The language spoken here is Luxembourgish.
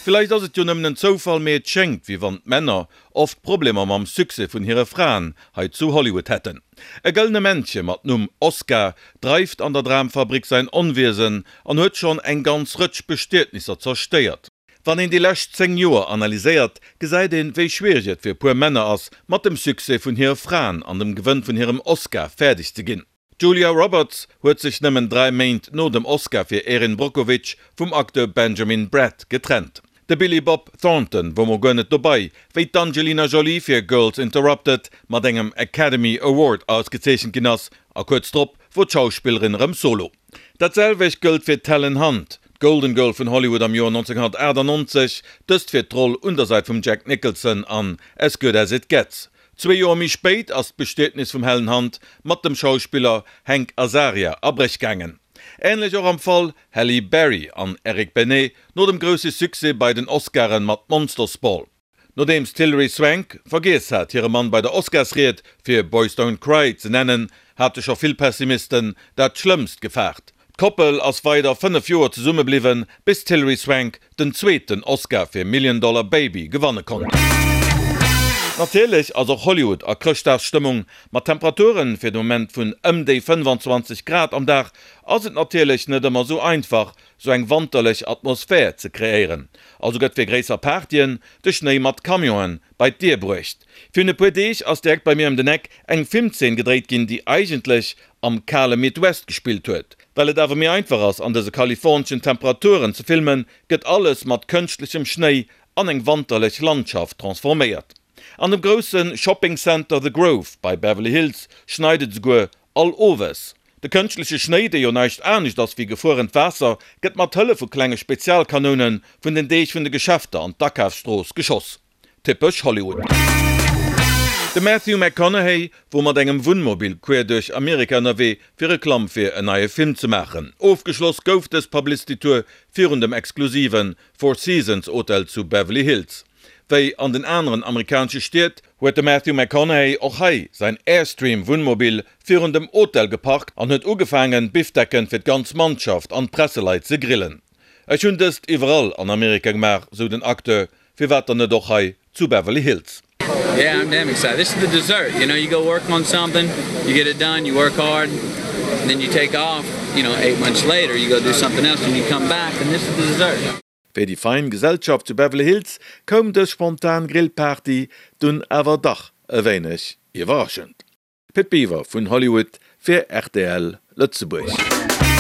Villäicht ass et jo nëmmen en Zoufall, mee et schéngt, wéi wann d'Männer oft Problemer mam Succès vun hire Fraen hei zu Hollywood hätten. E gëllene Männche mat Numm Oscar dreift an der Dramfabrik säin Onwiesen an huet schonn eng ganz Rëtsch Bestietnisser zerstéiert. Wann een déi lescht 10 Joer analyséiert, gesäit een, wéi schwiereg et fir e puer Männer ass, mat dem Succès vun hire Fraen an dem Gewënn vun hirem Oscar fäerdeg ze ginn. D'Julia Roberts huet sech nëmmen 3 Méint no dem Oscar fir Erin Brockovich vum Acteur Benjamin Bratt getrennt. De Billy Bob Thornton wor mol guer net dobei, wéi d'Angelina Jolie fir Girls Interrupted mat engem Academy Award ausgezeechent ginn ass, a kuerz drop wor d'Schauspillerin erëm solo. Dat selwecht gëllt fir d'Helen Hunt, d'Golden Girl vun Hollywood am Joer 1998, dëst fir d'Roll un der Säit vum Jack Nicholson an As Good As It Gets. Zwee Joer méi spéit ass d'Bestietnis vum Helen Hunt mat dem Schauspiller Hank Azaria a Bréch gaangen. Änlech och am Fall Halle Berry an Eric Benet no dem grousse Succès bei den Oscaren mat Monsters Ball. Nodeems d'Hilary Swank vergiess hat hire Mann bei der Oscarsried fir Boys Don't Cry ze nennen, hate scho vill Pessimisten dat Schlëmmst gefaart. D'Koppel ass weider 5 Joer zesumme bliwwen, bis d'Hilary Swank den zweeten Oscar fir Million Dollar Baby gewanne konnt. Natierlech ass och Hollywood a Chrëschtdagsstëmmung. Mat Temperaturen fir de Moment vun ëm déi 25 Grad am Dag ass et natierlech net ëmmer sou einfach, sou eng wanterlech Atmosphär ze kreéieren. Also gëtt fir gréisser Partyen de Schnéi mat Camionen bei d'Dier bruecht. Virun e puer Deeg ass direkt bei mir ëm den Eck eng Filmzeen gedréit ginn, déi eigentlech am kale Midwest gespillt huet. Well et awer méi einfach ass an dëse kaliforneschen Temperaturen ze filmen, gëtt alles mat kënschtlechem Schnéi an eng wanterlech Landschaft transforméiert. An dem grousse Shopping Center The Grove bei Beverly Hills schneit et esouguer all Owes. De kënschtleche Schnéi, dee jo näischt anescht ass wéi gefruerent Waasser, gëtt mat Hëllef vu klenge Spezialkanoune vun den Deeg vun de Geschäfter an d'Akafsstrooss geschoss. Typesch Hollywood. De Matthew McConaughey wor mat engem Wunnmobil queer duerch Amerika ënnerwee fir Reklamm fir en neie Film ze maachen. Ofgeschloss gouf dës Publicity Tour virun dem exklusive Four Seasons Hotel zu Beverly Hills. Wéi an den aneren amerikanesche Stied, huet de Matthew McConaughey och hei säin Airstream Wunnmobil virun dem Hotel geparkt an huet ugefaangen Bifdecken fir d'ganz Mannschaft an d'Presseleit ze grillen. Ech hunn dëst iwwerall an Amerika gemaach, sou den Acteur, firwat dann net och hei zu Beverly Hills? Yeah, I'm damn excited. This is the dessert, you know, you go work on something, you get it done, you work hard, and then you take off, you know, eight months later, you go do something else and you come back and this is the dessert. Fir déi fein Gesellschaft zu Beverly Hills koum dës spontan Grillparty dunn awer dach e wéineg iwwerraschend. Pit Biwer vun Hollywood fir rtl Lëtzebuerg.